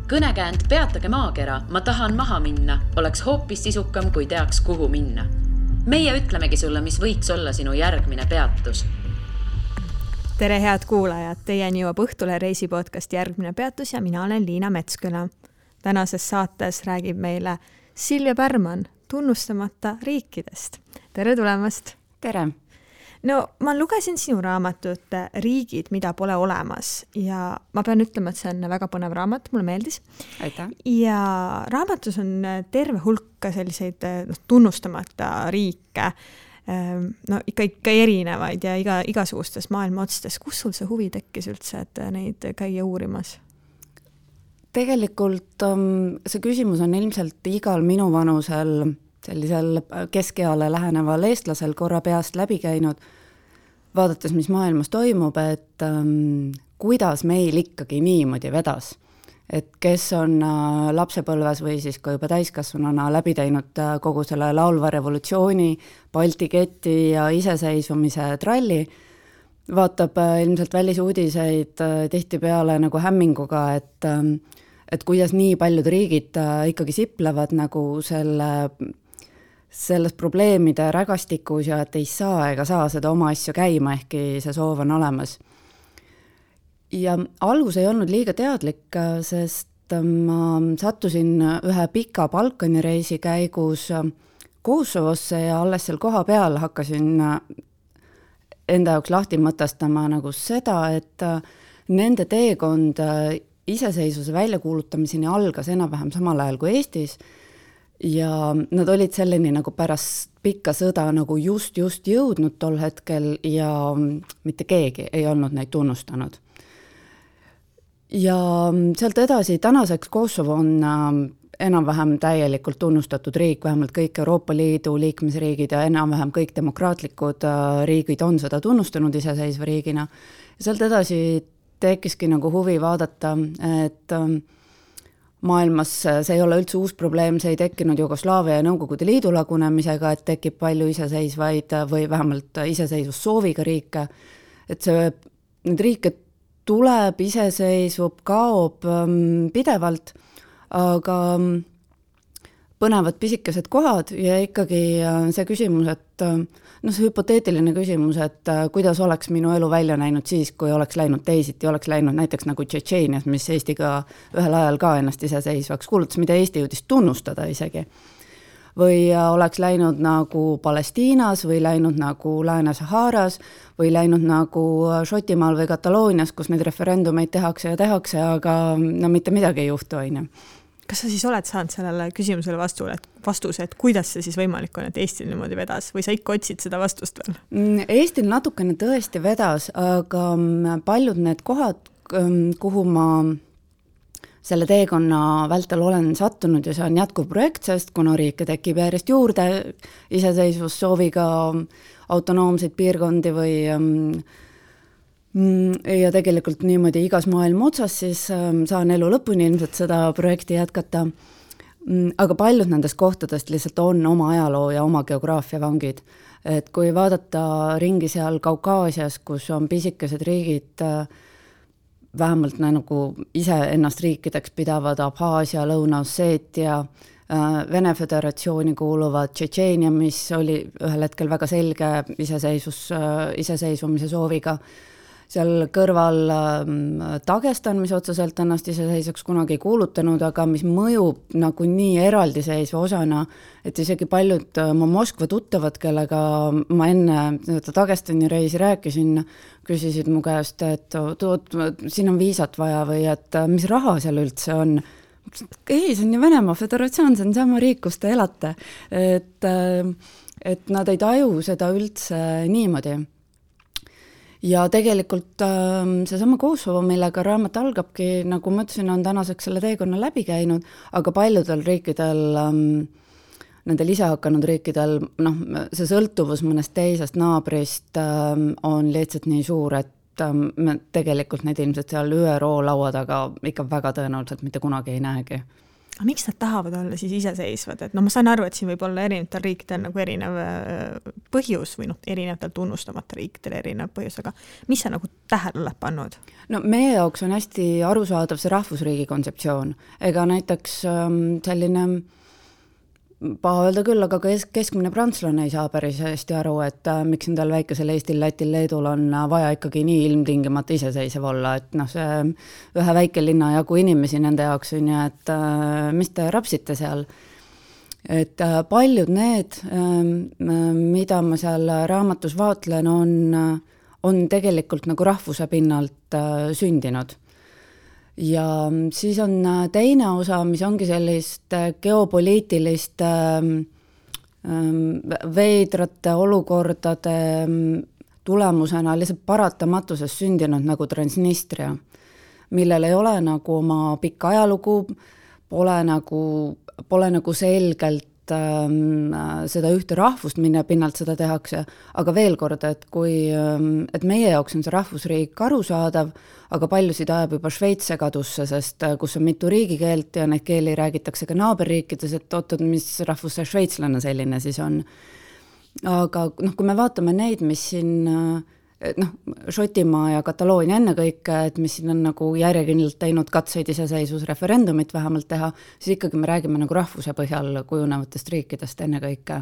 Kõnekäänd peatage maakera, ma tahan maha minna, oleks hoopis sisukam, kui teaks, kuhu minna. Meie ütlemegi sulle, mis võiks olla sinu järgmine peatus. Tere head kuulajad, teieni jõuab Õhtule reisipodcast Järgmine peatus ja mina olen Liina Metsküla. Tänases saates räägib meile Silvia Pärman tunnustamata riikidest. Tere tulemast! Tere! No, ma lugesin sinu raamatut Riigid, mida pole olemas ja ma pean ütlema, et see on väga põnev raamat, mulle meeldis. Aitäh! Ja raamatus on terve hulka selliseid tunnustamata riike, no ikka erinevaid ja igasugustes maailma otstes. Kus sul see huvi tekkis üldse, et neid käia uurimas? Tegelikult see küsimus on ilmselt igal minu vanusel sellisel keskeale läheneval eestlasel korra peast läbi käinud, vaadates, mis maailmas toimub, et kuidas meil ikkagi niimoodi vedas. Et kes on lapsepõlves või siis ka juba täiskasvanuna läbi teinud kogu selle laulva revolutsiooni, Balti keti ja iseseisvumise tralli, vaatab ilmselt välisuudiseid tihtipeale nagu hämminguga, et kuidas nii paljud riigid ikkagi siplevad nagu selles probleemide rägastikus ja et ei saa ega saa seda oma asju käima, ehkki see soov on olemas. Ja algus ei olnud liiga teadlik, sest ma sattusin ühe pika Balkani reisi käigus Kosovosse ja alles seal koha peal hakkasin enda jaoks lahti mõtestama nagu seda, et nende teekond iseseisvuse väljakuulutamiseni algas enam-vähem samal ajal kui Eestis ja nad olid selleni nagu pärast pikka sõda nagu just jõudnud tol hetkel ja mitte keegi ei olnud neid tunnustanud. Ja sealt edasi tänaseks Kosovo on enam-vähem täielikult tunnustatud riik, vähemalt kõik Euroopa Liidu liikmesriigid ja enam-vähem kõik demokraatlikud riigid on seda tunnustanud iseseisva riigina. Ja sealt edasi tekkiski nagu huvi vaadata, et maailmas see ei ole üldse uus probleem, see ei tekkinud Jugoslaavia ja Nõukogude Liidu lagunemisega, et tekib palju iseseisvaid või vähemalt iseseisvussooviga riike, et need riike tuleb, iseseisvub, kaob pidevalt, aga põnevad pisikesed kohad ja ikkagi see küsimus, et see hüpoteetiline küsimus, et kuidas oleks minu elu välja näinud siis, kui oleks läinud teisiti, oleks läinud näiteks nagu Tšetšeenias, mis Eestiga ühel ajal ka ennast iseseisvaks kuulutas, mida Eesti jõudis tunnustada isegi. Või oleks läinud nagu Palestiinas või läinud nagu Lääne-Saharas või läinud nagu Šotimaal või Kataloonias, kus neid referendumeid tehakse, aga mitte midagi ei juhtu, aine. Kas sa siis oled saanud sellele küsimusele vastuse, et kuidas see siis võimalik on, et Eestil niimoodi vedas või sa ikka otsid seda vastust veel? Eestil natukene tõesti vedas, aga paljud need kohad, kuhu ma selle teekonna vältel olen sattunud ja see on jätkuv projekt, sest kuna riike tekib järjest juurde iseseisvussooviga autonoomseid piirkondi või ja tegelikult niimoodi igas maailma otsas, siis saan elu lõpuni ilmselt seda projekti jätkata. Aga paljud nendest kohtadest lihtsalt on oma ajaloo ja oma geograafia vangid. Et kui vaadata ringi seal Kaukaasias, kus on pisikesed riigid, vähemalt nagu ise ennast riikideks pidavad Abhaasia, Lõuna-Osseetia, Vene Föderatsiooni kuuluvad Tšetšeenia, mis oli ühel hetkel väga selge iseseisvumise sooviga. Seal kõrval Dagestan, mis otseselt ennast iseseisvaks kunagi ei kuulutanud, aga mis mõjub nagu nii eraldiseisva osana, et isegi paljud mu Moskva tuttavad, kellega ma enne Dagestani reisi rääkisin, küsisid mu käest, et siin on viisat vaja või et mis raha seal üldse on. Ei, see on ju Venemaa Föderatsioon, see on sama riik, kus te elate. Et nad ei taju seda üldse niimoodi. Ja tegelikult seesama Kosovo, millega raamat algabki, nagu ma ütlesin, on tänaseks selle teekonna läbi käinud, aga paljudel riikidel, nendel ise hakanud riikidel, see sõltuvus mõnest teisest naabrist on lihtsalt nii suur, et tegelikult neid ilmselt seal ÜRO laua taga ikka väga tõenäoliselt mitte kunagi ei näegi. Miks nad tahavad olla siis iseseisvad? Et ma saan aru, et siin võib olla erinevatel riikidel nagu erinev põhjus või erinevatel tunnustamata riikidel erinev põhjus, aga mis sa nagu tähele oled pannud? No meie jaoks on hästi arusaadav see rahvusriigi kontseptsioon. Ega näiteks selline paha öelda küll, aga keskmine prantslane ei saa päris hästi aru, et miks endal väikesel Eestil, Lätil, Leedul on vaja ikkagi nii ilmtingimata iseseisev olla, et see ühe väike linna jagu inimesi nende jaoks on ja, et mis te rapsite seal. Et paljud need, mida ma seal raamatus vaatlen, on tegelikult nagu rahvuse pinnalt sündinud. Ja siis on teine osa, mis ongi sellist geopoliitilist veidrate olukordade tulemusena lihtsalt paratamatuses sündinud nagu Transnistria, millel ei ole nagu oma pikka ajalugu, pole nagu selgelt seda ühte rahvust, mille pinnalt seda tehakse, aga veel kord, et meie jaoks on see rahvusriik arusaadav, aga paljusid ajab juba Šveits segadusse, sest kus on mitu riigikeelt ja neid keeli räägitakse ka naaberriikides, et ootad, mis rahvus see šveitslane selline siis on. Aga kui me vaatame neid, mis siin Šotimaa ja Kataloonia ennekõike, et mis siin on nagu järjekindlalt teinud katseid iseseisvusreferendumit vähemalt teha, siis ikkagi me räägime nagu rahvuse põhjal kujunevatest riikidest ennekõike.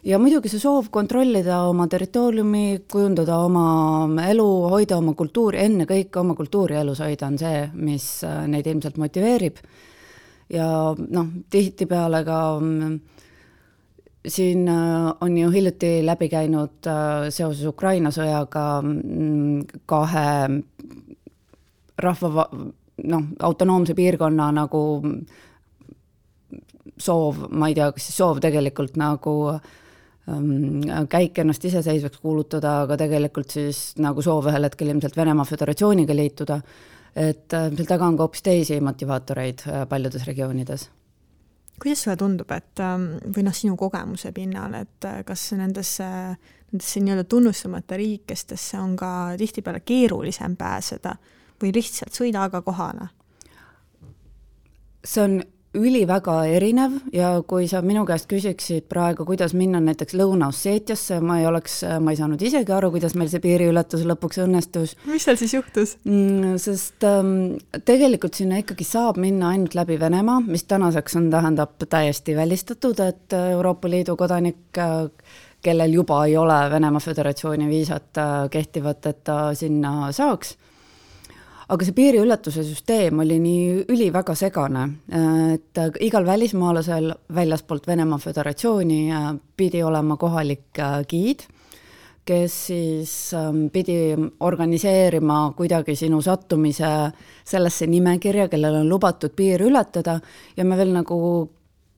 Ja muidugi see soov kontrollida oma territooriumi, kujundada oma elu, hoida oma kultuuri, ennekõike oma kultuuri elus hoida on see, mis neid ilmselt motiveerib. Ja tihtipeale ka siin on ju hiljuti läbi käinud seoses Ukraina sõjaga kahe rahva autonoomse piirkonna nagu soov, ma ei tea, kas soov tegelikult nagu käik ennast iseseisvaks kuulutada, aga tegelikult siis nagu soov ühel hetkel ilmselt Venemaa Föderatsiooniga liituda, et seal taga on ka hoopis teisi motivaatoreid paljudes regioonides. Kuidas sulle tundub, et või sinu kogemuse pinnal, et kas nendesse nii-öelda tunnustamata riikestesse on ka tihtipeale keerulisem pääseda või lihtsalt sõida aga kohale? See on üliväga erinev ja kui sa minu käest küsiksid praegu, kuidas minna näiteks Lõuna-Osseetiasse, ma ei saanud isegi aru, kuidas meil see piiriületus lõpuks õnnestus. Mis seal siis juhtus? Sest tegelikult sinna ikkagi saab minna ainult läbi Venemaa, mis tänaseks tähendab täiesti välistatud, et Euroopa Liidu kodanik, kellel juba ei ole Venemaa Föderatsiooni viisat kehtivat, et ta sinna saaks. Aga see piiriületuse süsteem oli nii üliväga segane, et igal välismaalasel väljaspoolt Venemaa Föderatsiooni pidi olema kohalik giid, kes siis pidi organiseerima kuidagi sinu sattumise sellesse nimekirja, kellel on lubatud piiri ületada ja me veel nagu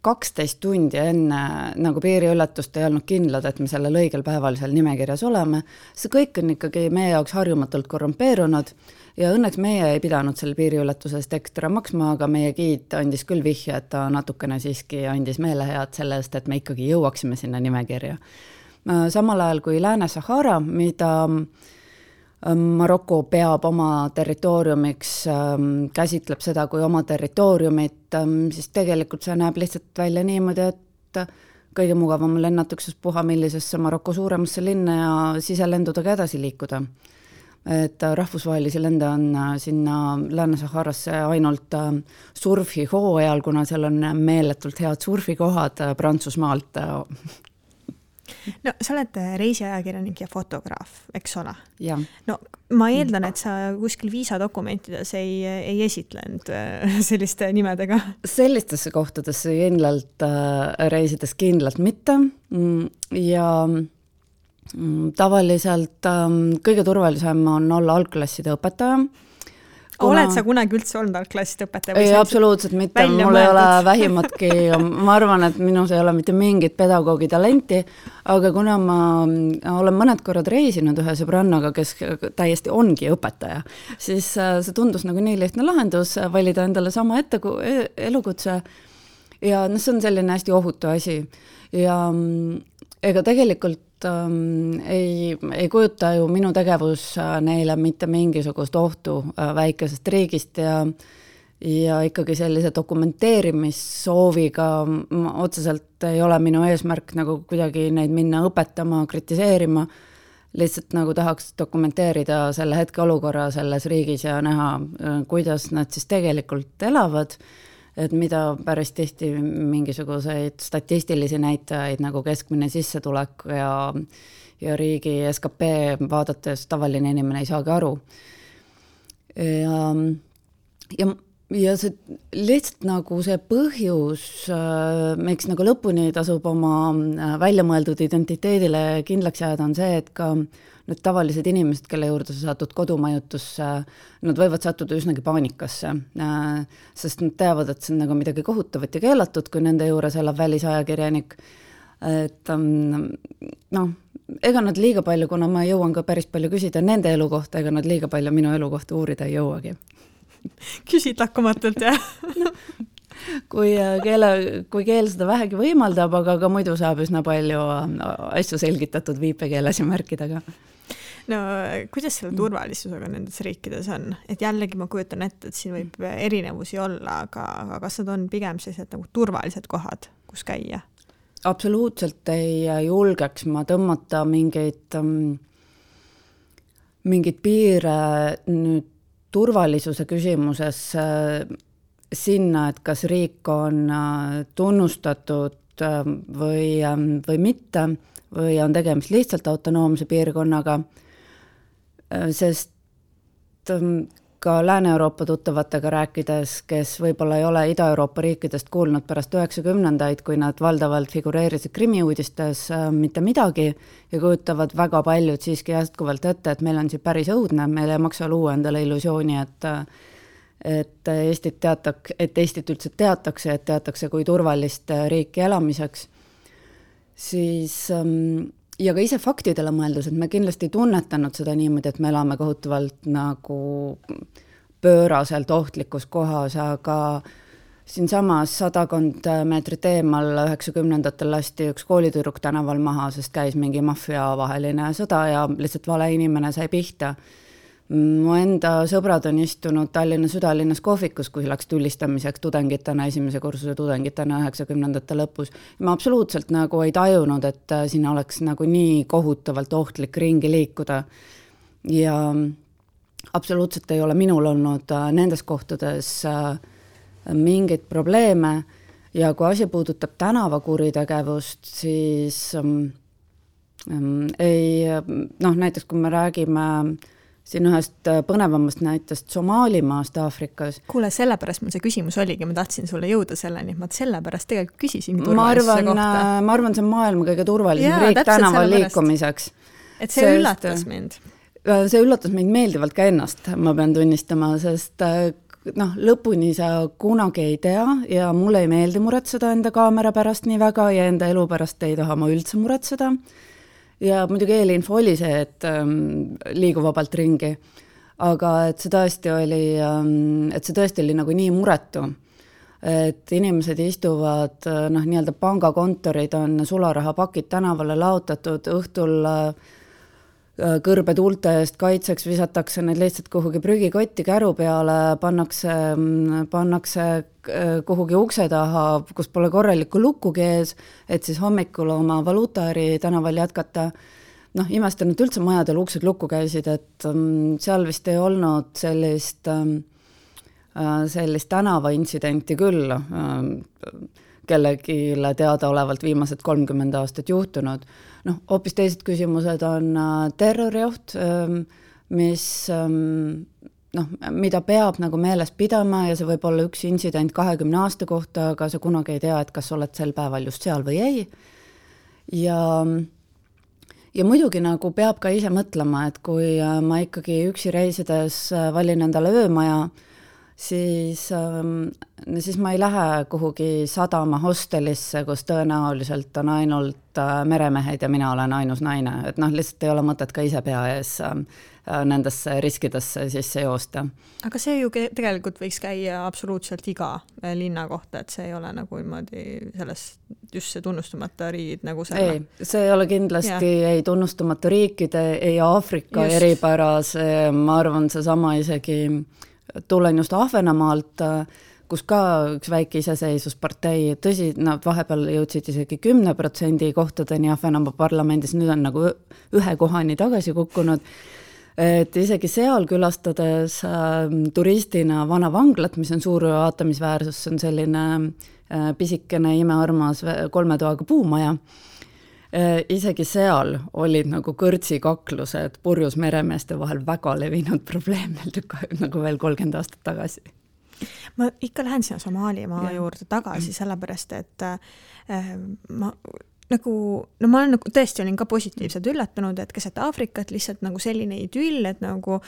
12 tundi enne nagu piiriületust ei olnud kindlad, et me sellel õigel päeval seal nimekirjas oleme. See kõik on ikkagi meie jaoks harjumatult korrumpeerunud ja õnneks meie ei pidanud selle piiriületusest ekstra maksma, aga meie giid andis küll vihje, et ta natukene siiski andis meelehead selle eest, et me ikkagi jõuaksime sinna nimekirja. Samal ajal kui Lääne-Sahara, mida Maroko peab oma territooriumiks, käsitleb seda kui oma territooriumit, siis tegelikult see näeb lihtsalt välja niimoodi, et kõige mugavam lennatukses puha millisesse Maroko suuremasse linna ja siselendudega edasi liikuda. Et rahvusvahelisi lende on sinna Lääne-Saharasse ainult surfihooajal, kuna seal on meeletult head surfikohad Prantsusmaalt. No sa oled reisiajakirjanik ja fotograaf, eks ole? Ja. No ma eeldan, et sa kuskil viisadokumentides ei esitlenud selliste nimedega. Sellistesse kohtadesse kindlalt reisides kindlalt mitte ja tavaliselt kõige turvalisem on olla algklasside õpetaja. Oled sa kunagi üldse olnud algklasside õpetaja? Ei, absoluutselt mitte, mul ei ole vähimatki, ma arvan, et minus ei ole mitte mingit pedagoogi talenti, aga kuna ma olen mõned korrad reisinud ühe sõbrannaga, kes täiesti ongi õpetaja, siis see tundus nagu nii lihtne lahendus, valida endale sama elukutse ja see on selline hästi ohutu asi ja ega tegelikult ei kujuta ju minu tegevus neile mitte mingisugust ohtu väikesest riigist ja ikkagi sellise dokumenteerimissooviga otseselt ei ole minu eesmärk nagu kuidagi neid minna õpetama, kritiseerima, lihtsalt nagu tahaks dokumenteerida selle hetke olukorra selles riigis ja näha, kuidas nad siis tegelikult elavad, et mida päris tihti mingisuguseid statistilisi näitajaid nagu keskmine sissetulek ja riigi SKP vaadates tavaline inimene ei saagi aru. Ja see lihtsalt nagu see põhjus, miks nagu lõpuni tasub oma väljamõeldud identiteedile kindlaks jääda, on see, et ka need tavalised inimesed, kelle juurde sa satud kodumajutusse, nad võivad sattuda üsnagi paanikasse, sest nad teavad, et see on nagu midagi kohutavat ja keelatud, kui nende juures elab välisajakirjanik. Et ega nad liiga palju, kuna ma jõuan ka päris palju küsida nende elu kohta, ega nad liiga palju minu elu kohta uurida ei jõuagi. Küsid lakkamatult, jah? Kui keel seda vähegi võimaldab, aga ka muidu saab üsna palju asju selgitatud viipekeeles ja märkidega. No kuidas selle turvalisusega nendes riikides on? Et jällegi ma kujutan ette, et siin võib erinevusi olla, aga kas nad on pigem sellised nagu turvalised kohad, kus käia? Absoluutselt ei julgeks ma tõmmata mingid piire nüüd turvalisuse küsimuses sinna, et kas riik on tunnustatud või mitte, või on tegemist lihtsalt autonoomse piirkonnaga, sest ka Lääne-Euroopa tuttavatega rääkides, kes võib-olla ei ole Ida-Euroopa riikidest kuulnud pärast 90-ndaid, kui nad valdavalt figureerisid krimiuudistes mitte midagi ja kujutavad väga paljud siiski jätkuvalt ette, et meil on siin päris õudne, meil ei maksa luua endale illusiooni, et Eestit üldse teatakse, et teatakse kui turvalist riiki elamiseks, siis ja ka ise faktidele mõeldus, et me kindlasti ei tunnetanud seda niimoodi, et me elame kohutavalt nagu pööraselt ohtlikus kohas, aga siinsamas 100 meetrit eemal 90-ndatel lasti üks koolitüdruk tänaval maha, sest käis mingi maffia vaheline sõda ja lihtsalt vale inimene sai pihta. Mu enda sõbrad on istunud Tallinna südalinnas kohvikus, kui läks tulistamiseks tudengitena, esimese kursuse tudengitena 90-ndate lõpus. Ma absoluutselt nagu ei tajunud, et siin oleks nagu nii kohutavalt ohtlik ringi liikuda. Ja absoluutselt ei ole minul olnud nendes kohtades mingeid probleeme ja kui asi puudutab tänavakuritegevust, siis näiteks kui me räägime siin ühest põnevamast näitest Somaalimaast Aafrikas. Kuule, sellepärast mul see küsimus oligi, ma tahtsin sulle jõuda selleni, ma sellepärast tegelikult küsisin turvalisuse kohta. Ma arvan, see on maailma kõige turvalisem riik tänaval liikumiseks. Et see üllatas mind. See üllatas mind meeldivalt ka ennast, ma pean tunnistama, sest lõpuni sa kunagi ei tea ja mulle ei meeldi muretseda enda kaamera pärast nii väga ja enda elu pärast ei taha ma üldse muretseda. Ja muidugi eelinfo oli see, et liigu vabalt ringi, aga et see tõesti oli nagu nii muretu, et inimesed istuvad, nii-öelda pangakontorid on sularahapakid tänavale laotatud, õhtul kõrbetuulte eest kaitseks visatakse need lihtsalt kuhugi prügikotti käru peale, pannakse kuhugi ukse taha, kus pole korralikku lukkugi ees, et siis hommikul oma valuutaäri tänaval jätkata. Imestan, et üldse majadel uksed lukku käisid, et seal vist ei olnud sellist tänavaintsidenti küll, kellegile teadaolevalt viimased 30 aastat juhtunud. Hoopis teised küsimused on terrorioht, mida peab nagu meeles pidama ja see võib olla üks intsident 20 aasta kohta, aga sa kunagi ei tea, et kas oled sel päeval just seal või ei. Ja muidugi nagu peab ka ise mõtlema, et kui ma ikkagi üksi reisides valin endale öömaja, siis ma ei lähe kuhugi sadama hostelisse, kus tõenäoliselt on ainult meremehed ja mina olen ainus naine. Et lihtsalt ei ole mõtet ka ise pea ees nendesse riskidesse sisse joosta. Aga see ju tegelikult võiks käia absoluutselt iga linna kohta, et see ei ole nagu just see tunnustamata riigid nagu selle. Ei, see ei ole kindlasti ei tunnustamata riikide, ei Aafrika eripäras, ma arvan, see sama isegi tulen just Ahvenamaalt, kus ka üks väike iseseisvuspartei, tõsi, nad vahepeal jõudsid isegi 10% kohtadeni Ahvenamaa parlamendis, nüüd on nagu 1 kohani tagasi kukkunud, et isegi seal külastades turistina vana vanglat, mis on suur vaatamisväärsus, see on selline pisikene imearmas 3 toaga puumaja, isegi seal olid nagu kõrtsikaklused purjus meremeeste vahel väga levinud probleem nagu veel 30 aastat tagasi. Ma ikka lähen sinna Somaalimaa juurde tagasi, sellepärast, et ma olen nagu tõesti olin ka positiivselt üllatunud, et keset Aafrikat lihtsalt nagu selline idüll, et nagu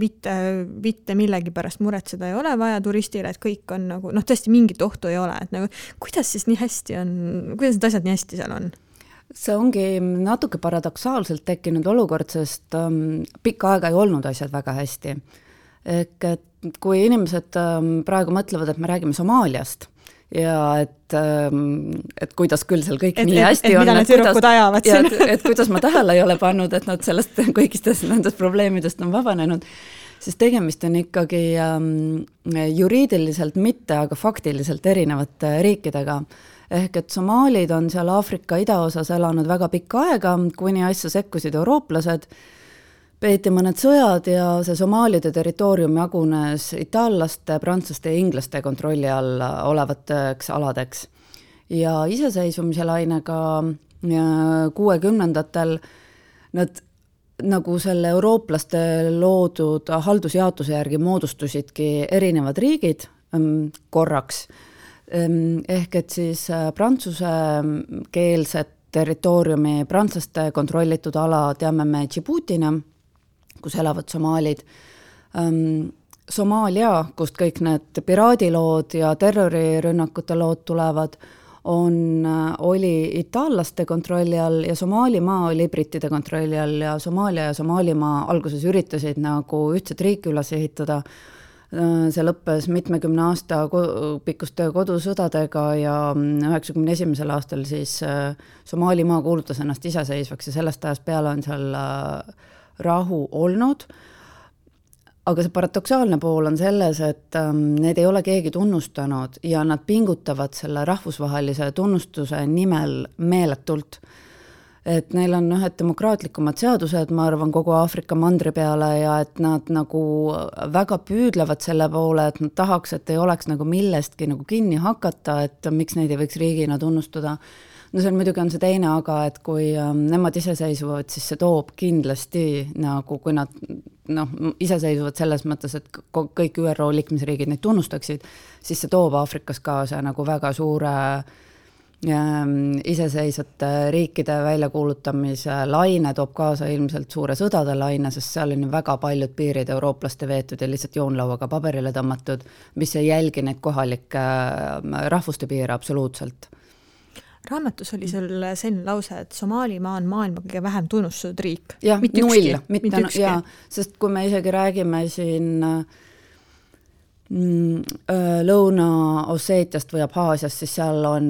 mitte millegi pärast muretseda ei ole vaja turistile, et kõik on nagu, tõesti mingit ohtu ei ole, et nagu kuidas siis nii hästi on, kuidas need asjad nii hästi seal on? See ongi natuke paradoksaalselt tekkinud olukord, sest pikka aega ei olnud asjad väga hästi. Ehk et kui inimesed praegu mõtlevad, et me räägime Somaaliast ja et kuidas küll seal kõik nii hästi on, et kuidas ma tähele ei ole pannud, et nad sellest kõigistest nendest probleemidest on vabanenud, siis tegemist on ikkagi juriidiliselt mitte, aga faktiliselt erinevate riikidega. Ehk et somaalid on seal Aafrika idaosas elanud väga pikka aega, kuni asja sekkusid eurooplased, peeti mõned sõjad ja see somaalide territoorium jagunes itaallaste, prantslaste ja inglaste kontrolli all olevateks aladeks. Ja iseseisvumise lainega 60-ndatel nad nagu selle eurooplaste loodud haldusjaotuse järgi moodustusidki erinevad riigid korraks. Ehk et siis prantsuse keelset territooriumi, prantslaste kontrollitud ala teame me Djiboutina, kus elavad somaalid. Somaalia, kust kõik need piraadilood ja terrorirünnakute lood tulevad, oli itaallaste kontrolli all ja Somaalimaa oli brittide kontrolli all ja Somaalia ja Somaalimaa alguses üritasid nagu ühtset riiki üles ehitada. See lõppes mitmekümne aasta pikkuste kodusõdadega ja 91. aastal siis Somaalimaa kuulutas ennast iseseisvaks ja sellest ajast peale on seal rahu olnud. Aga see paradoksaalne pool on selles, et need ei ole keegi tunnustanud ja nad pingutavad selle rahvusvahelise tunnustuse nimel meeletult. Et neil on ühed demokraatlikumad seadused, ma arvan, kogu Aafrika mandri peale ja et nad nagu väga püüdlevad selle poole, et nad tahaks, et ei oleks nagu millestki nagu kinni hakata, et miks neid ei võiks riigina tunnustada. No see on muidugi on see teine, aga et kui nemad iseseisvuvad, siis see toob kindlasti nagu, kui nad iseseisvuvad selles mõttes, et kõik ÜRO liikmesriigid neid tunnustaksid, siis see toob Aafrikas kaasa nagu väga suure iseseisvate riikide väljakuulutamise laine, toob kaasa ilmselt suure sõdade laine, sest seal on väga paljud piirid eurooplaste veetud ja lihtsalt joonlauaga paberile tõmmatud, mis ei jälgi neid kohalikke rahvuste piire absoluutselt. Raamatus oli sul selline lause, et Somaalimaa on maailma kõige vähem tunnustatud riik. Jah, null. Mitte ükski. Ja, sest kui me isegi räägime siin Lõuna-Osseetiast või Abhaasiast, siis seal on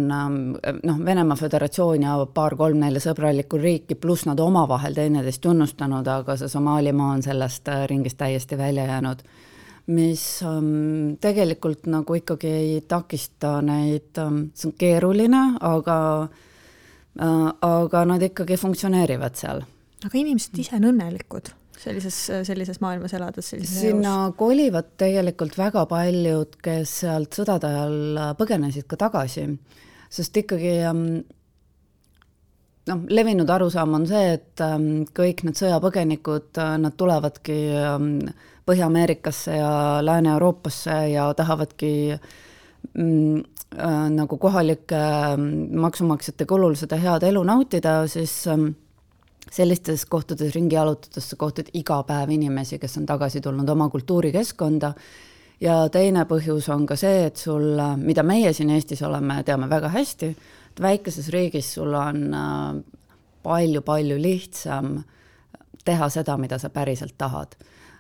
Venemaa Föderatsioon ja 2-3-4 sõbralikku riiki, pluss nad omavahel teineteist tunnustanud, aga see Somaalimaa on sellest ringist täiesti välja jäänud, mis tegelikult nagu ikkagi ei takista neid, see on keeruline, aga nad ikkagi funktsioneerivad seal. Aga inimesed ise on õnnelikud sellises maailmas elades? Sinna kolivad tegelikult väga paljud, kes sealt sõdade ajal põgenesid ka tagasi, sest ikkagi levinud arusaam on see, et kõik need sõjapõgenikud, nad tulevadki Põhja-Ameerikasse ja Lääne-Euroopasse ja tahavadki nagu kohalike maksumaksjate kulul seda head elu nautida, siis sellistes kohtades ringi jalutades kohtad iga päev inimesi, kes on tagasi tulnud oma kultuurikeskkonda. Ja teine põhjus on ka see, et sul, mida meie siin Eestis oleme, teame väga hästi, et väikeses riigis sul on palju lihtsam teha seda, mida sa päriselt tahad.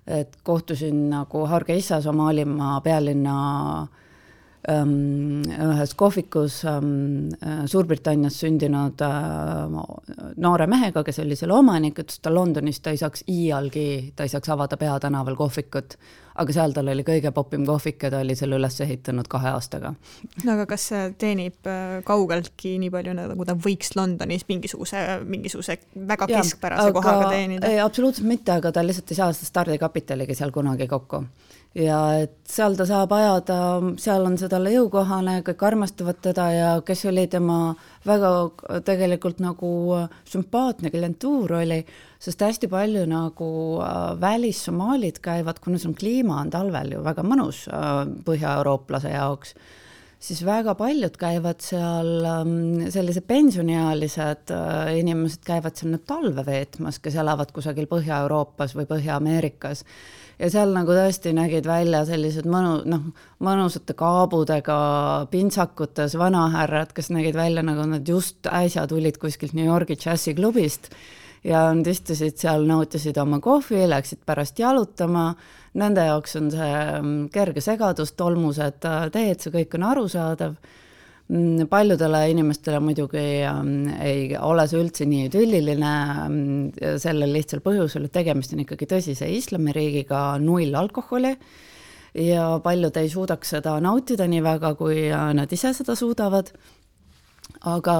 Et kohtusin nagu Hargeisa Somaalimaa pealinna ühes kohvikus Suurbritannias sündinud noore mehega, kes oli selle omanik, ütles, ta Londonis ta ei saaks avada peatänaval kohvikut, aga seal tal oli kõige popim kohvik ja ta oli selle üles ehitanud 2 aastaga. No aga kas see teenib kaugeltki nii palju, nagu ta võiks Londonis mingisuguse väga keskpärase kohaga teenida? Ei, absoluutselt mitte, aga ta lihtsalt ei saa seda stardikapitaligi seal kunagi kokku. Ja et seal ta saab ajada, seal on see talle jõukohane, kõik armastavad teda ja kes oli tema väga tegelikult nagu sümpaatne klientuur oli, sest hästi palju nagu välissomaalid käivad, kuna see kliima on talvel ju väga mõnus põhja-eurooplase jaoks, siis väga paljud käivad seal, sellise pensioniealised inimesed käivad seal nüüd talve veetmas, kes elavad kusagil Põhja-Euroopas või Põhja-Ameerikas. Ja seal nagu tõesti nägid välja sellised mõnusate kaabudega pintsakutes vanahärrad, kes nägid välja nagu nad just äsja tulid kuskilt New Yorgi džässiklubist ja nad istusid seal, nautisid oma kohvi, läksid pärast jalutama. Nende jaoks on see kerge segadus, tolmused teed, see kõik on arusaadav. Paljudele inimestele muidugi ei ole see üldse nii idülliline sellel lihtsal põhjusel, et tegemist on ikkagi tõsise islamiriigiga, 0 alkoholi ja paljud ei suudaks seda nautida nii väga, kui nad ise seda suudavad. Aga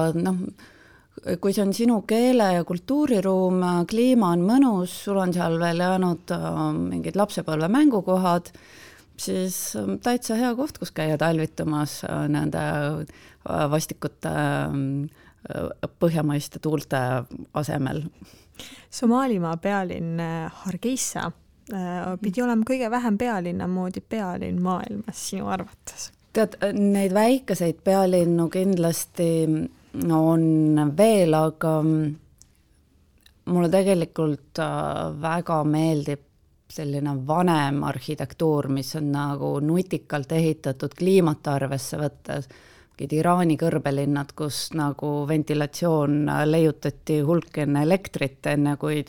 kui see on sinu keele- ja kultuuriruum, kliima on mõnus, sul on seal veel jäänud mingid lapsepõlve mängukohad, siis täitsa hea koht, kus käia talvitumas nende vastikute põhjamaiste tuulte asemel. Somaalimaa pealinn Hargeisa pidi olema kõige vähem pealinna moodi pealinn maailmas sinu arvates? Tead, neid väikeseid pealinnu kindlasti on veel, aga mulle tegelikult väga meeldib selline vanem arhitektuur, mis on nagu nutikalt ehitatud kliimat arvesse võttes. Iraani kõrbelinnad, kus nagu ventilatsioon leiutati hulk enne elektrit, enne kui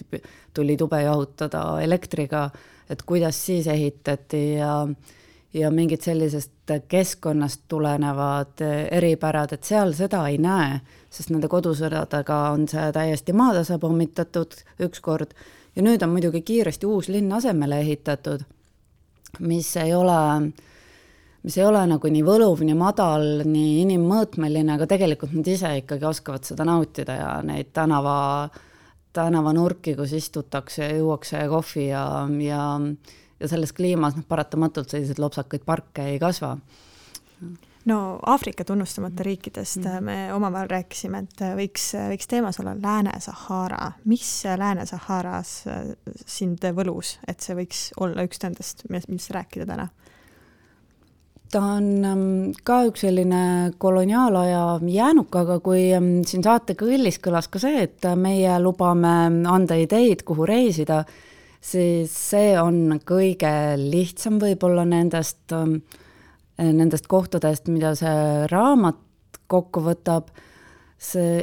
tuli tube jahutada elektriga, et kuidas siis ehitati ja mingid sellisest keskkonnast tulenevad eripärad, et seal seda ei näe, sest nende kodusõdadega on see täiesti maatasa pommitatud ükskord. Ja nüüd on muidugi kiiresti uus linn asemele ehitatud, mis ei ole nagu nii võluv, nii madal, nii inimmõõtmeline, aga tegelikult nad ise ikkagi oskavad seda nautida ja neid tänavanurki, kus istutakse ja juuakse kohvi ja selles kliimas paratamatult sellised lopsakaid parke ei kasva. No Aafrika tunnustamata riikidest me omavahel rääkisime, et võiks teemas olla Lääne-Sahara. Mis Lääne-Saharas sind võlus, et see võiks olla üks nendest, mis rääkida täna? Ta on ka üks selline koloniaalaja jäänuk, aga kui siin saate kõllis kõlas ka see, et meie lubame anda ideid, kuhu reisida, siis see on kõige lihtsam võib-olla nendest kohtadest, mida see raamat kokku võtab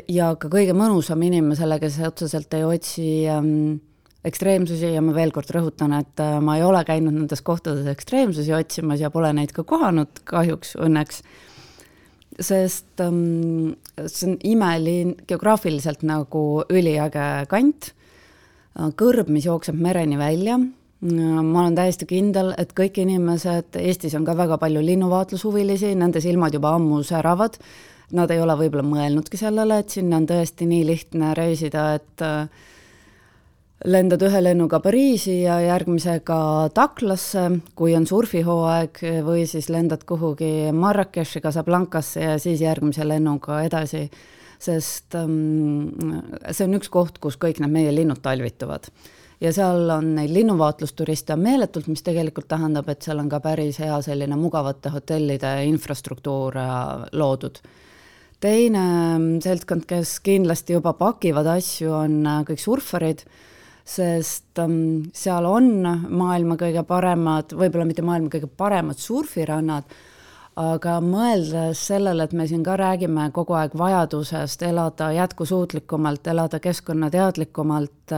ja ka kõige mõnusam inimesele, kes otseselt ei otsi ekstreemsusi ja ma veel kord rõhutan, et ma ei ole käinud nendes kohtades ekstreemsusi otsimas ja pole neid ka kohanud kahjuks õnneks, sest see on imelin geograafiliselt nagu üliäge kant, kõrb, mis jookseb mereni välja. Ma olen täiesti kindel, et kõik inimesed, Eestis on ka väga palju linnuvaatlushuvilisi, nende silmad juba ammu säravad, nad ei ole võib-olla mõelnudki sellele, et sinna on tõesti nii lihtne reisida, et lendad ühe lennuga Pariisi ja järgmisega Taklasse, kui on surfihooaeg, või siis lendad kuhugi Marrakechi, Casablancasse ja siis järgmise lennuga edasi, sest see on üks koht, kus kõik need meie linnud talvituvad. Ja seal on neid linnuvaatlusturiste meeletult, mis tegelikult tähendab, et seal on ka päris hea selline mugavate hotellide infrastruktuur loodud. Teine seltskond, kes kindlasti juba pakivad asju, on kõik surfarid, sest seal on maailma kõige paremad, võib-olla mitte maailma kõige paremad surfirannad, aga mõeldes sellele, et me siin ka räägime kogu aeg vajadusest elada jätkusuutlikumalt, elada keskkonnateadlikumalt,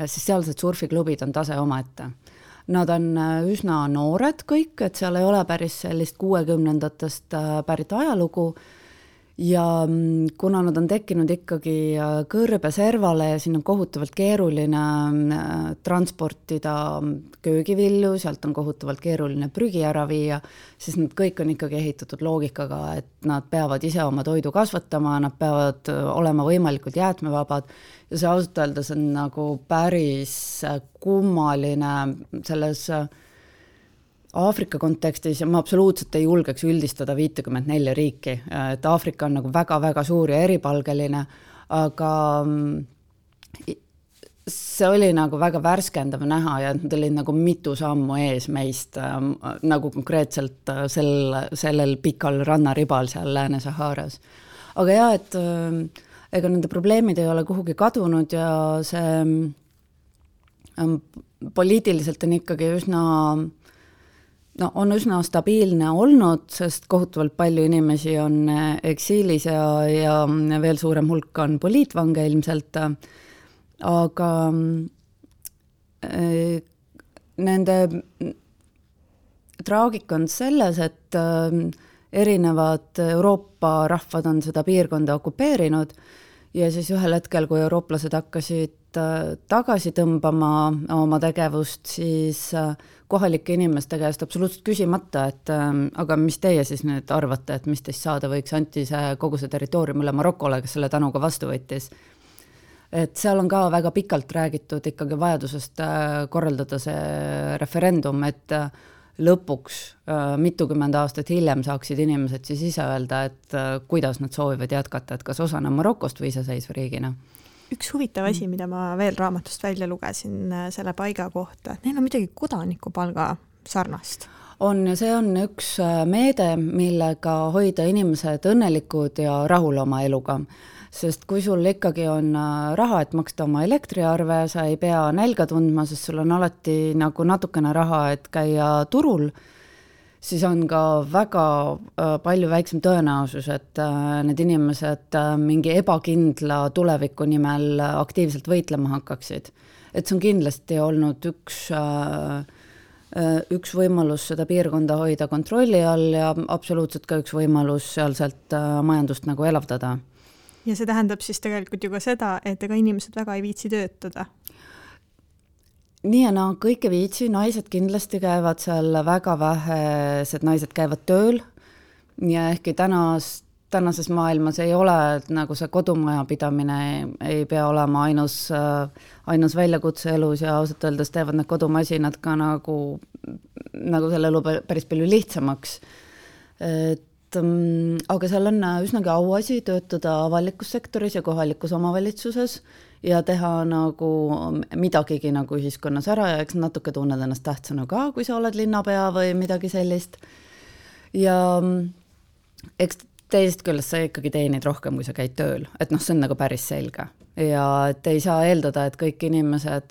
siis sealsed surfiklubid on tase omaette. Nad on üsna noored kõik, et seal ei ole päris sellist 60ndatest pärit ajalugu ja kuna nad on tekkinud ikkagi kõrbe servale ja siin on kohutavalt keeruline transportida köögivilju, sealt on kohutavalt keeruline prügi ära viia, siis nad kõik on ikkagi ehitatud loogikaga, et nad peavad ise oma toidu kasvatama, nad peavad olema võimalikult jäätmevabad ja see ausalt öeldes on nagu päris kummaline selles Aafrika kontekstis ja ma absoluutselt ei julgeks üldistada 54 riiki, et Aafrika on nagu väga-väga suur ja eripalgeline, aga see oli nagu väga värskendav näha ja nad olid nagu mitu sammu ees meist, nagu konkreetselt sellel pikal rannaribal seal Lääne-Saharas. Aga jah, et ega nende probleemid ei ole kuhugi kadunud ja see poliitiliselt on ikkagi on üsna stabiilne olnud, sest kohutavalt palju inimesi on eksiilis ja veel suurem hulk on poliitvange ilmselt, aga nende traagika on selles, et erinevad Euroopa rahvad on seda piirkonda okupeerinud ja siis ühel hetkel, kui eurooplased hakkasid tagasi tõmbama oma tegevust, siis kohalike inimeste käest absoluutselt küsimata, et aga mis teie siis nüüd arvate, et mis teist saada võiks, anti see kogu see territoorium üle Marokole, kes selle tänuga vastu võttis. Et seal on ka väga pikalt räägitud ikkagi vajadusest korraldada see referendum, et lõpuks mitukümmend aastat hiljem saaksid inimesed siis ise öelda, et kuidas nad soovivad jätkata, et kas osana Marokost või iseseisva riigina. Üks huvitav asi, mida ma veel raamatust välja lugesin selle paiga kohta, et neil on midagi kodanikupalga sarnast. On ja see on üks meede, millega hoida inimesed õnnelikud ja rahul oma eluga. Sest kui sul ikkagi on raha, et maksta oma elektriarve, sa ei pea nälga tundma, sest sul on alati nagu natukene raha, et käia turul, siis on ka väga palju väiksem tõenäosus, et need inimesed mingi ebakindla tuleviku nimel aktiivselt võitlema hakkaksid. Et see on kindlasti olnud üks võimalus seda piirkonda hoida kontrolli all ja absoluutselt ka üks võimalus sealselt majandust nagu elavdada. Ja see tähendab siis tegelikult ju ka seda, et ega inimesed väga ei viitsi töötada. Nii ja kõik ei viitsi, naised kindlasti käivad seal väga vähesed, naised käivad tööl ja ehkki tänases maailmas ei ole nagu see kodumaja pidamine ei pea olema ainus väljakutse elus ja ausalt öeldes teevad need kodumasinad ka nagu selle elu päris palju lihtsamaks. Aga seal on üsnagi auasi töötada avalikus sektoris ja kohalikus omavalitsuses ja teha nagu midagigi nagu ühiskonnas ära ja eks natuke tunned ennast tähtsana ka, kui sa oled linnapea või midagi sellist. Ja eks teisest küljest sa ikkagi teenid rohkem, kui sa käid tööl, et see on nagu päris selge. Ja et ei saa eeldada, et kõik inimesed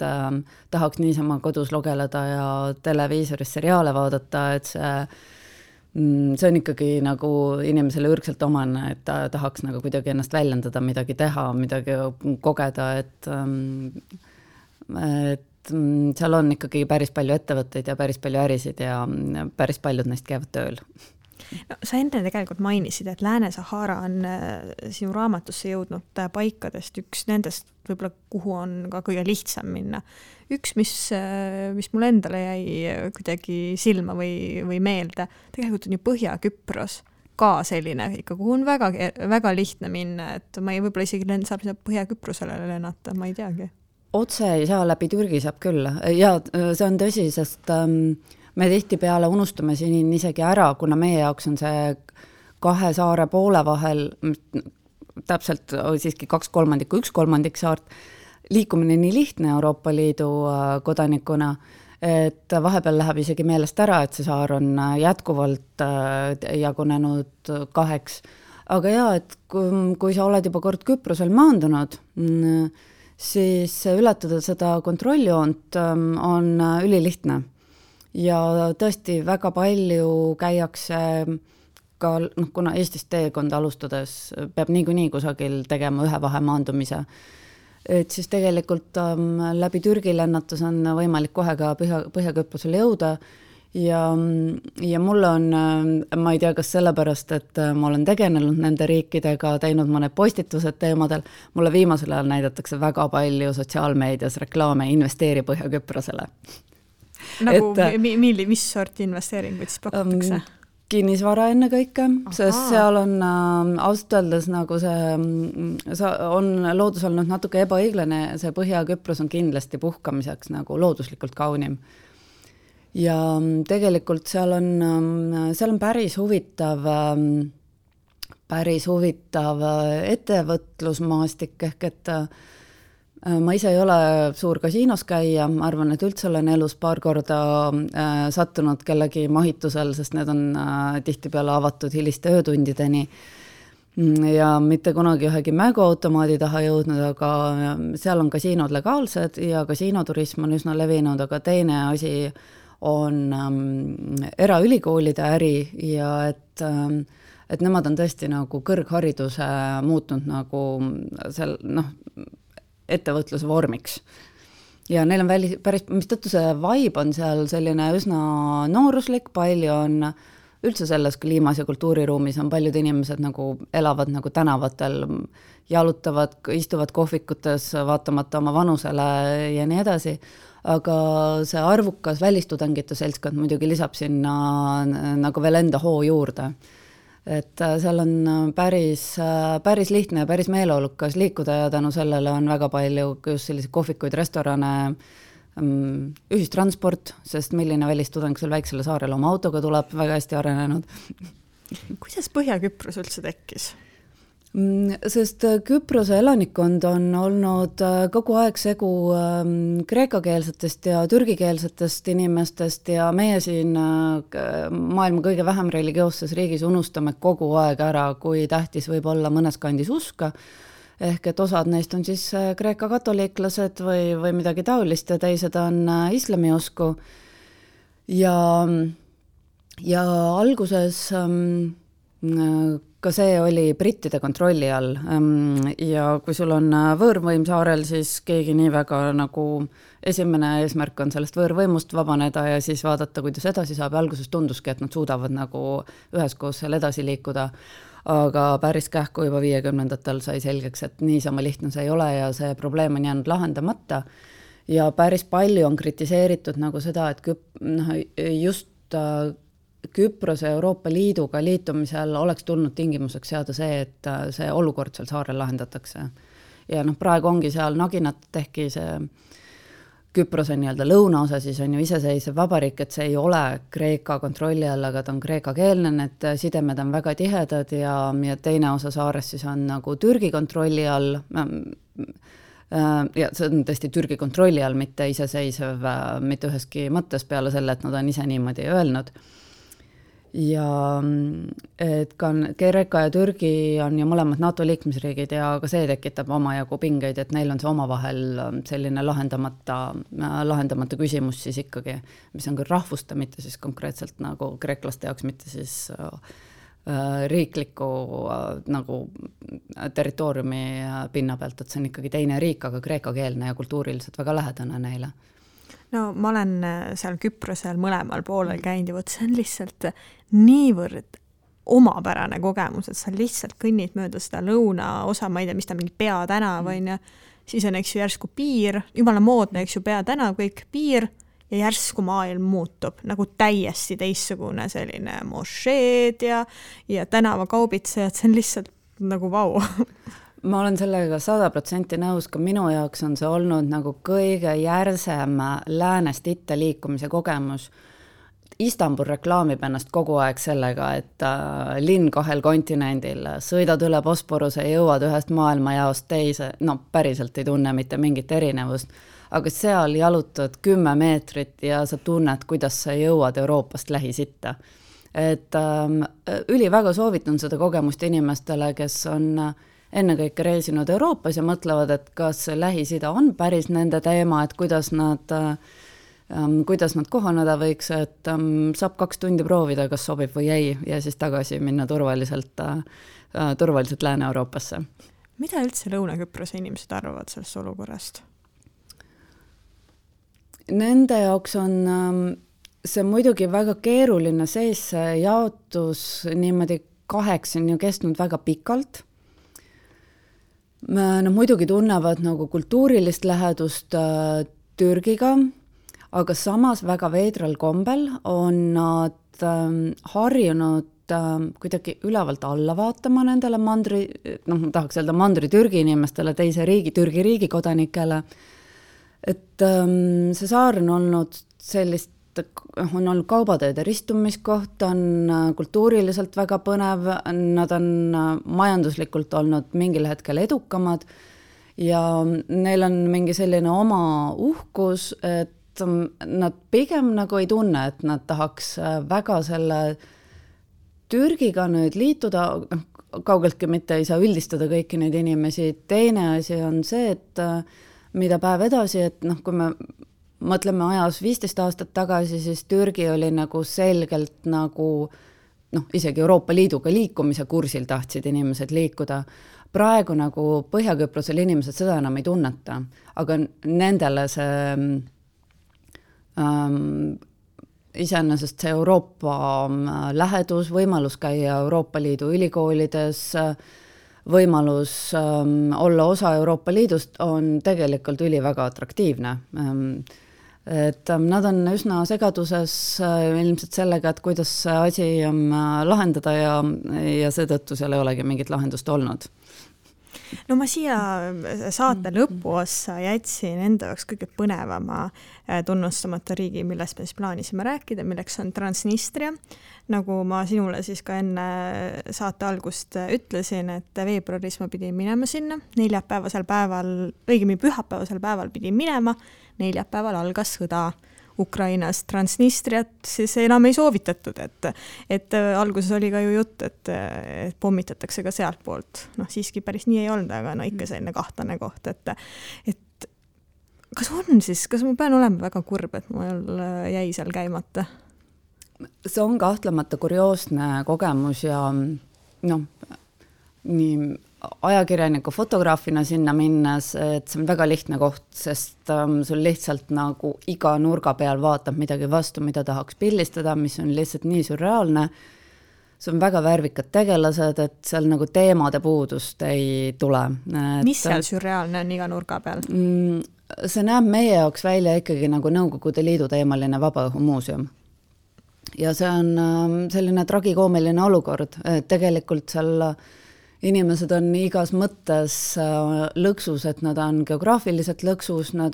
tahaks niisama kodus logeleda ja televiisoris seriaale vaadata, et see on ikkagi nagu inimesele ürgselt omane, et ta tahaks nagu kuidagi ennast väljendada, midagi teha, midagi kogeda, et seal on ikkagi päris palju ettevõtteid ja päris palju ärisid ja päris paljud neist käivad tööl. No, sa enne tegelikult mainisid, et Lääne-Sahara on sinu raamatusse jõudnud paikadest üks nendest, võib-olla kuhu on ka kõige lihtsam minna. Üks, mis mul endale jäi kuidagi silma või meelde, tegelikult on ju Põhja-Küpros ka selline, ikka kuhu on väga, väga lihtne minna, et ma ei võib-olla isegi saab Põhja-Küprosele lennata, ma ei teagi. Otse ei saa, läbi Türgi saab küll. Ja see on tõsi, sest me tihtipeale unustame siin isegi ära, kuna meie jaoks on see 2 saare poole vahel, täpselt siiski 2/3, 1/3 saart, liikumine nii lihtne Euroopa Liidu kodanikuna, et vahepeal läheb isegi meelest ära, et see saar on jätkuvalt jagunenud 2. Aga jaa, et kui sa oled juba kord Küprosel maandunud, siis ületada seda kontrolljoont on ülilihtne. Ja tõesti väga palju käiakse ka, kuna Eestist teekonda alustades peab niikuinii kusagil tegema ühe vahemaandumise, et siis tegelikult läbi Türgi lennatus on võimalik kohe ka Põhja-Küprosele jõuda ja mul on, ma ei tea, kas sellepärast, et ma olen tegelenud nende riikidega, teinud mõned postitused teemadel, mulle viimasel ajal näidatakse väga palju sotsiaalmeedias reklaame investeeri Põhja-Küprosele. Nagu mis sorti investeeringuid siis pakutakse? Kinnisvara enne kõike, sest seal on ausalt öeldes nagu see on loodus olnud natuke ebaõiglane, see Põhja-Küpros on kindlasti puhkamiseks nagu looduslikult kaunim. Ja tegelikult seal on päris huvitav ettevõtlusmaastik ehk et ma ise ei ole suur kasiinos käia, ma arvan, et üldse olen elus paar korda sattunud kellegi mahitusel, sest need on tihtipeale avatud hiliste öötundideni ja mitte kunagi ühegi mänguautomaadi taha jõudnud, aga seal on kasiinod legaalsed ja kasiinoturism on üsna levinud, aga teine asi on eraülikoolide äri ja et nemad on tõesti nagu kõrghariduse muutnud nagu seal, ettevõtluse vormiks. Ja neil on päris, mistõttu see vibe on seal selline üsna nooruslik, palju on üldse selles kliimas ja kultuuriruumis on paljud inimesed nagu elavad nagu tänavatel, jalutavad, istuvad kohvikutes vaatamata oma vanusele ja nii edasi, aga see arvukas välistudengite seltskond muidugi lisab sinna nagu veel enda hoo juurde. Et seal on päris lihtne ja päris meeleolukas liikuda ja tänu sellele on väga palju just selliseid kohvikuid, restorane, ühistransport, sest milline välistudeng seal väiksele saarele oma autoga tuleb, väga hästi arenenud. Kuidas Põhja-Küpros üldse tekkis? Sest Küprose elanikkond on olnud kogu aeg segu kreekakeelsetest ja türgikeelsetest inimestest ja meie siin maailma kõige vähem religioosses riigis unustame kogu aeg ära, kui tähtis võib olla mõnes kandis uska, ehk et osad neist on siis kreeka katoliiklased või midagi taolist ja teised on islamiusku ja alguses ka see oli brittide kontrolli all ja kui sul on võõrvõim saarel, siis keegi nii väga nagu esimene eesmärk on sellest võõrvõimust vabaneda ja siis vaadata, kuidas edasi saab ja alguses tunduski, et nad suudavad nagu üheskoos seal edasi liikuda, aga päris kähku juba 50-ndatel sai selgeks, et niisama lihtne see ei ole ja see probleem on jäänud lahendamata ja päris palju on kritiseeritud nagu seda, et just Küprose Euroopa Liiduga liitumisel oleks tulnud tingimuseks seada see, et see olukord seal saarel lahendatakse. Ja praegu ongi seal naginat, ehkki see Küprose nii-öelda lõunaosa siis on ju iseseisev vabariik, et see ei ole Kreeka kontrolli all, aga ta on kreekakeelne, et sidemed on väga tihedad ja teine osa saarest siis on nagu Türgi kontrolli all, ja see on tõesti Türgi kontrolli all, mitte iseseisev, mitte üheski mõttes peale selle, et nad on ise niimoodi öelnud. Ja et ka Kreeka ja Türgi on ju mõlemad NATO liikmesriigid ja ka see tekitab omajagu pingeid, et neil on see omavahel selline lahendamata küsimus siis ikkagi, mis on küll rahvuste, mitte siis konkreetselt nagu kreeklaste jaoks, mitte siis riikliku nagu territooriumi pinna pealt, et see on ikkagi teine riik, aga kreekakeelne ja kultuuriliselt väga lähedane neile. No ma olen seal Küprosel mõlemal poolel käinud ja võt, see on lihtsalt niivõrd omapärane kogemus, et sa lihtsalt kõnnid mööda seda lõunaosa, ma ei tea, mis ta mingi peatänav on ja siis on eks ju järsku piir, jumala moodne, eks ju peatänav, kõik piir ja järsku maailm muutub nagu täiesti teistsugune selline mošeed ja tänavakaubitsejad, see on lihtsalt nagu vau. Ma olen sellega 100% nõus, ka minu jaoks on see olnud nagu kõige järsem läänest itta liikumise kogemus. Istanbul reklaamib ennast kogu aeg sellega, et linn 2 kontinendil, sõidad üle Bosporuse ja jõuad ühest maailmajaost teise, päriselt ei tunne mitte mingit erinevust, aga seal jalutad 10 meetrit ja sa tunned, kuidas sa jõuad Euroopast lähisitta. Et väga soovitan seda kogemust inimestele, kes on ennekõike reisinud Euroopas ja mõtlevad, et kas Lähis-Ida on päris nende teema, et kuidas nad kohaneda võiks, et saab 2 tundi proovida, kas sobib või ei, ja siis tagasi minna turvaliselt Lääne-Euroopasse. Mida üldse Lõuna-Küprose inimesed arvavad sellest olukorrast? Nende jaoks on see muidugi väga keeruline sees, see jaotus niimoodi 8 on ju kestnud väga pikalt. Nad muidugi tunnevad nagu kultuurilist lähedust Türgiga, aga samas väga veidral kombel on nad harjunud kuidagi ülevalt alla vaatama nendele mandri, ma tahaks öelda mandri Türgi inimestele, teise riigi, Türgi riigi kodanikele. Et see saar on olnud on olnud kaubateede ristumiskoht, on kultuuriliselt väga põnev, nad on majanduslikult olnud mingil hetkel edukamad ja neil on mingi selline oma uhkus, et nad pigem nagu ei tunne, et nad tahaks väga selle Türgiga nüüd liituda, kaugeltki mitte ei saa üldistada kõiki neid inimesi. Teine asi on see, et mida päev edasi, et kui me mõtleme ajas 15 aastat tagasi, siis Türgi oli nagu selgelt nagu isegi Euroopa Liiduga liikumise kursil tahtsid inimesed liikuda. Praegu nagu Põhja-Küprosel inimesed seda enam ei tunneta, aga nendele see iseenesest see Euroopa lähedus, võimalus käia Euroopa Liidu ülikoolides, võimalus olla osa Euroopa Liidust on tegelikult väga atraktiivne. Et nad on üsna segaduses ilmselt sellega, et kuidas see asi lahendada ja seetõttu seal ei olegi mingit lahendust olnud. No ma siia saate lõpuossa jätsin enda jaoks kõige põnevama tunnustamata riigi, millest me siis plaanisime rääkida, milleks on Transnistria. Nagu ma sinule siis ka enne saate algust ütlesin, et veebruaris ma pidin minema sinna, neljapäevasel päeval, õigemini pühapäevasel päeval pidin minema, neljapäeval algas sõda Ukrainas. Transnistriat siis enam ei soovitatud, et alguses oli ka ju jutt, et pommitatakse ka sealt poolt. Siiski päris nii ei olnud, aga ikka selline kahtlane koht, et kas ma pean olema väga kurb, et mul jäi seal käimata? See on kahtlemata kurioosne kogemus ja nii ajakirjaniku fotograafina sinna minnes, et see on väga lihtne koht, sest sul lihtsalt nagu iga nurga peal vaatab midagi vastu, mida tahaks pildistada, mis on lihtsalt nii surreaalne. See on väga värvikad tegelased, et seal nagu teemade puudust ei tule. Mis seal surreaalne on iga nurga peal? See näeb meie jaoks välja ikkagi nagu Nõukogude Liidu teemaline vabaõhumuuseum. Ja see on selline tragikoomiline olukord, et tegelikult seal inimesed on igas mõttes lõksus, et nad on geograafiliselt lõksus, nad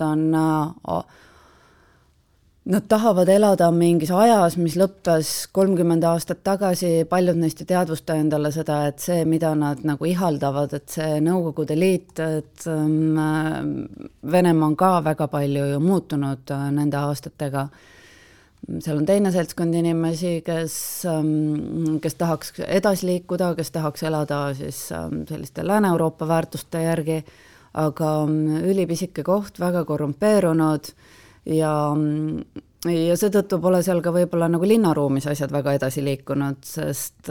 tahavad elada mingis ajas, mis lõppes 30 aastat tagasi, paljud neist ei teadvusta endale seda, et see, mida nad nagu ihaldavad, et see Nõukogude Liit, et Venemaa on ka väga palju ju muutunud nende aastatega. Seal on teine seltskond inimesi, kes tahaks edasi liikuda, kes tahaks elada siis selliste Lääne-Euroopa väärtuste järgi, aga ülipisike koht, väga korrumpeerunud ja seetõttu pole seal ka võib-olla nagu linnaruumis asjad väga edasi liikunud, sest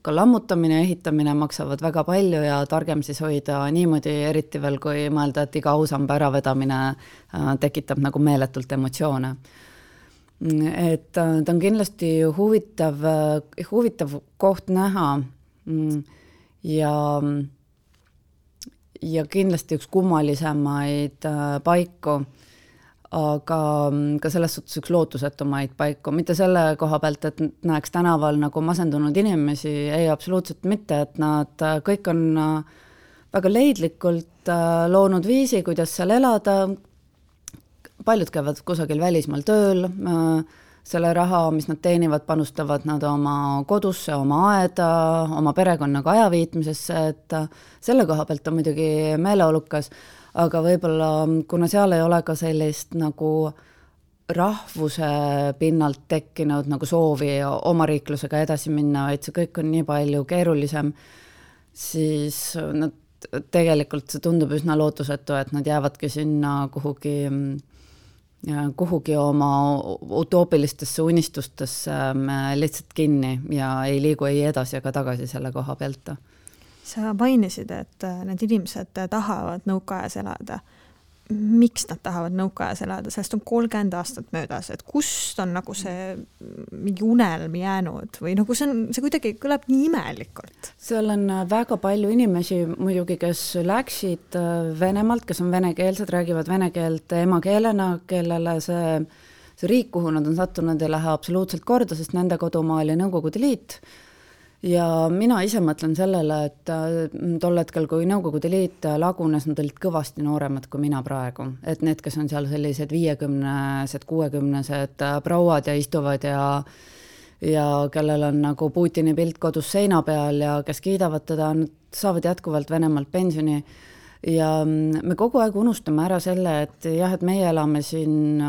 ka lammutamine ja ehitamine maksavad väga palju ja targem siis hoida niimoodi, eriti veel kui mõelda, et iga ausamba äravedamine tekitab nagu meeletult emotsioone. Et ta on kindlasti huvitav koht näha ja kindlasti üks kummalisemaid paiku, aga ka selles suhtes üks lootusetumaid paiku. Mitte selle koha pealt, et näeks tänaval nagu masendunud inimesi, ei absoluutselt mitte, et nad kõik on väga leidlikult loonud viisi, kuidas seal elada. Paljud käivad kusagil välismaal tööl, selle raha, mis nad teenivad, panustavad nad oma kodusse, oma aeda, oma perekonnaga ajaviitmisesse, et selle koha pealt on muidugi meeleolukas, aga võib-olla, kuna seal ei ole ka sellist nagu rahvuse pinnalt tekkinud nagu soovi oma riiklusega edasi minna, vaid see kõik on nii palju keerulisem, siis tegelikult see tundub üsna lootusetu, et nad jäävadki sinna kuhugi oma utoopilistesse unistustesse lihtsalt kinni ja ei liigu ei edasi ega tagasi selle koha pealt. Sa mainisid, et need inimesed tahavad nõukaajas elada. Miks nad tahavad nõukaajas elada? Sellest on 30 aastat möödas, et kust on nagu see mingi unelm jäänud või nagu see kuidagi kõlab nii imelikult? Seal on väga palju inimesi muidugi, kes läksid Venemaalt, kes on venekeelsed, räägivad vene keelt emakeelena, kellele see riik, kuhu nad on sattunud, ei lähe absoluutselt korda, sest nende kodumaa oli Nõukogude Liit. Ja mina ise mõtlen sellele, et tol hetkel, kui Nõukogude Liit lagunes, nad olid kõvasti nooremad kui mina praegu. Et need, kes on seal sellised 50-sed, 60-sed prouad ja istuvad ja kellel on nagu Putini pilt kodus seina peal ja kes kiidavad teda, nad saavad jätkuvalt Venemaalt pensioni. Ja me kogu aeg unustame ära selle, et jah, et meie elame siin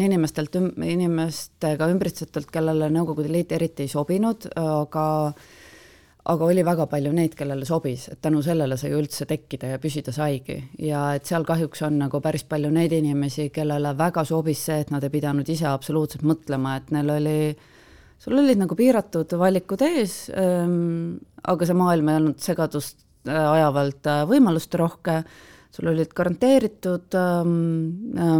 inimestega ümbritsetult, kellele Nõukogude Liit eriti ei sobinud, aga oli väga palju neid, kellele sobis, et tänu sellele sai üldse tekkida ja püsida saigi. Ja et seal kahjuks on nagu päris palju neid inimesi, kellele väga sobis see, et nad ei pidanud ise absoluutselt mõtlema, et sul olid nagu piiratud valikud ees, aga see maailm ei olnud segadust ajavalt võimalust rohke, sul olid garanteeritud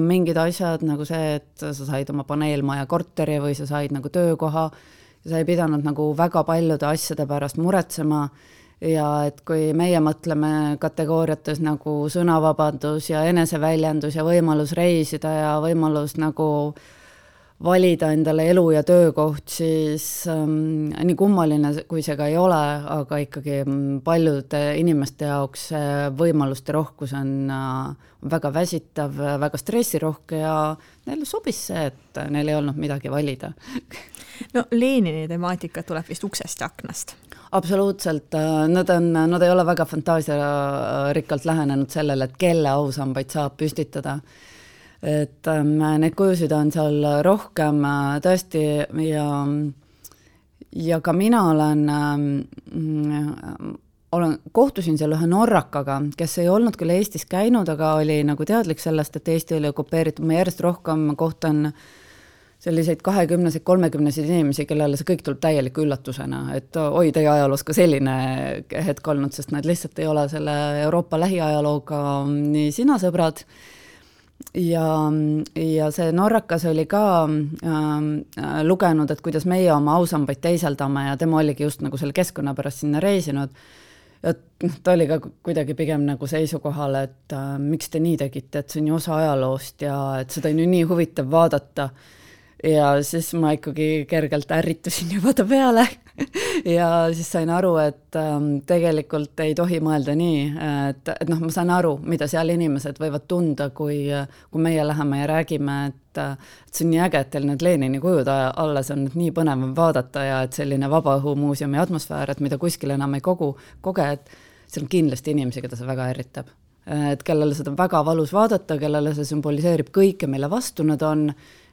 mingid asjad nagu see, et sa said oma paneelmaja korteri või sa said nagu töökoha ja sa ei pidanud nagu väga paljude asjade pärast muretsema ja et kui meie mõtleme kategooriates nagu sõnavabadus ja eneseväljendus ja võimalus reisida ja võimalus nagu valida endale elu ja töökoht, siis nii kummaline, kui see ka ei ole, aga ikkagi paljude inimeste jaoks võimaluste rohkus on väga väsitav, väga stressirohke ja neile sobis see, et neil ei olnud midagi valida. No Lenini temaatika tuleb vist uksest ja aknast. Absoluutselt, nad ei ole väga fantaasiarikkalt lähenenud sellele, et kelle ausambaid saab püstitada. Et need kujusid on seal rohkem tõesti ja ka mina kohtusin seal ühe norrakaga, kes ei olnud küll Eestis käinud, aga oli nagu teadlik sellest, et Eesti oli okupeeritud. Ma järjest rohkem kohtan selliseid 20-seid, 30-seid inimesi, kellele see kõik tuleb täieliku üllatusena, et oi, teie ajaloos ka selline hetk olnud, sest nad lihtsalt ei ole selle Euroopa lähiajalooga nii sina sõbrad. Ja see norrakas oli ka lugenud, et kuidas meie oma ausambaid teisaldame ja tema oligi just nagu selle keskkonna pärast sinna reisinud. Ja ta oli ka kuidagi pigem nagu seisukohal, et miks te nii tegite, et see on ju osa ajaloost ja et seda on ju nii huvitav vaadata. Ja siis ma ikkagi kergelt ärritusin juba ta peale ja siis sain aru, et tegelikult ei tohi mõelda nii, et ma saan aru, mida seal inimesed võivad tunda, kui meie läheme ja räägime, et see on nii äge, et teil need Lenini kujud alles on nii põnev vaadata ja et selline vabaõhumuuseumi atmosfäär, et mida kuskil enam ei koge, et see on kindlasti inimesi, keda see väga ärritab. Et kellele seda väga valus vaadata, kellele see symboliseerib kõike, mille vastu nad on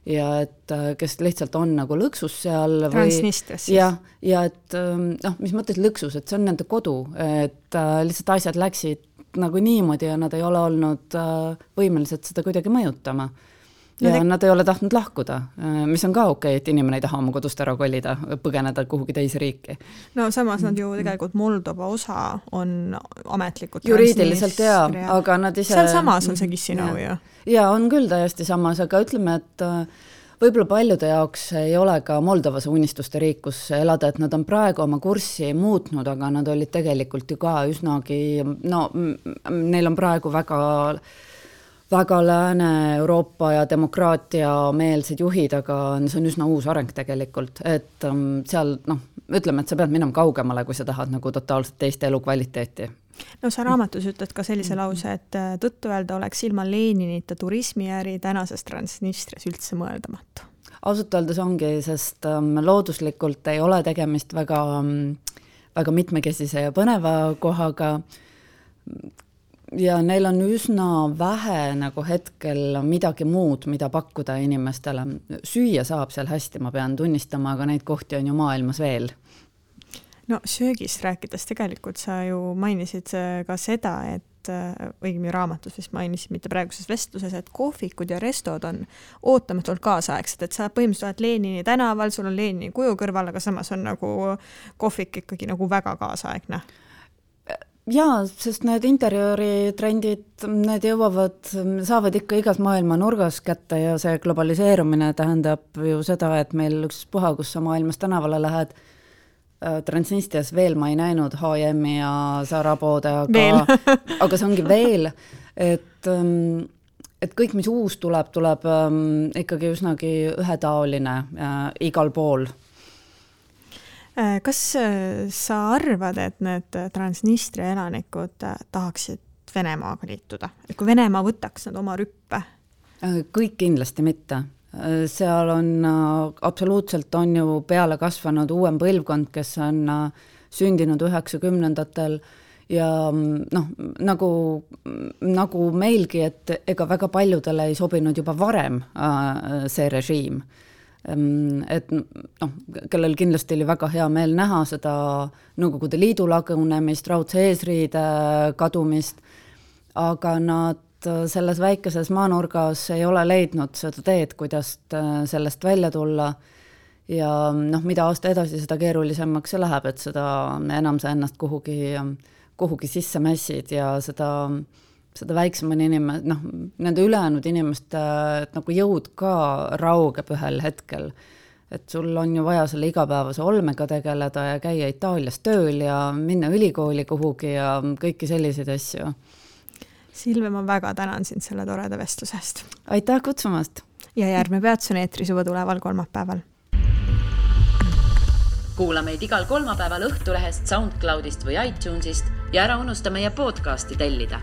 ja et kes lihtsalt on nagu lõksus seal. Transnistras siis. Ja et mis mõttes lõksus, et see on nende kodu, et lihtsalt asjad läksid nagu niimoodi ja nad ei ole olnud võimelised seda kuidagi mõjutama. Ja nad ei ole tahtnud lahkuda, mis on ka okei, et inimene ei taha oma kodust ära kolida, põgeneda kuhugi teise riiki. No samas nad ju tegelikult Moldova osa on ametlikult juriidiliselt aga nad ise... Seal samas on see Kissinõu ju. Ja on küll täiesti samas, aga ütleme, et võib-olla paljude jaoks ei ole ka Moldovas unistuste riik, kus elada, et nad on praegu oma kurssi muutnud, aga nad olid tegelikult ju ka üsnagi, neil on praegu väga Lääne-Euroopa ja demokraatia meelsed juhid, aga see on üsna uus areng tegelikult, et seal, ütleme, et sa pead minema kaugemale, kui sa tahad nagu totaalselt teist elukvaliteeti. No sa raamatus ütled ka sellise lause, et tõttu öelda oleks ilma Leninita turismiäri tänases Transnistrias üldse mõeldamatu. Ausalt öeldes ongi, sest looduslikult ei ole tegemist väga mitmekesise ja põneva kohaga ja neil on üsna vähe nagu hetkel midagi muud, mida pakkuda inimestele. Süüa saab seal hästi, ma pean tunnistama, aga neid kohti on ju maailmas veel. No söögist rääkides tegelikult sa ju mainisid ka seda, et õigemi raamatus vist mainisid, mitte praeguses vestluses, et kohvikud ja restod on ootamatult kaasaegsed, et sa põhimõtteliselt oled Lenini tänaval, sul on Lenini kuju kõrval, aga samas on nagu kohvik ikkagi nagu väga kaasaegne. Jaa, sest need interjööritrendid, need saavad ikka igas maailma nurgas kätte ja see globaliseerumine tähendab ju seda, et meil ükspuha, kus sa maailmas tänavale lähed, Transnistrias veel ma ei näinud H&M-i ja Zara poode, aga see ongi veel, et kõik, mis uus tuleb ikkagi üsnagi ühetaoline igal pool. Kas sa arvad, et need Transnistria elanikud tahaksid Venemaaga liituda? Et kui Venemaa võtaks nad oma rüppe? Kõik kindlasti mitte. Seal on absoluutselt on ju peale kasvanud uuem põlvkond, kes on sündinud 90-ndatel ja nagu meilgi, et ega väga paljudele ei sobinud juba varem see režiim. Et kellel kindlasti oli väga hea meel näha seda Nõukogude Liidu lagunemist, raudse eesriide kadumist, aga nad selles väikeses maanurgas ei ole leidnud seda teed, kuidas sellest välja tulla ja mida aasta edasi, seda keerulisemaks see läheb, et seda enam sa ennast kuhugi sisse mässid ja seda väiksemani nende ülejäänud inimeste nagu jõud ka raugeb ühel hetkel. Et sul on ju vaja selle igapäevase olmega tegeleda ja käia Itaalias tööl ja minna ülikooli kuhugi ja kõiki selliseid asju. Silve, ma väga tänan sind selle toreda vestlusest. Aitäh kutsumast! Ja järgmine peatus on eetris juba tuleval kolmapäeval. Kuula meid igal kolmapäeval Õhtulehest, SoundCloudist või iTunesist ja ära unusta meie podcasti tellida.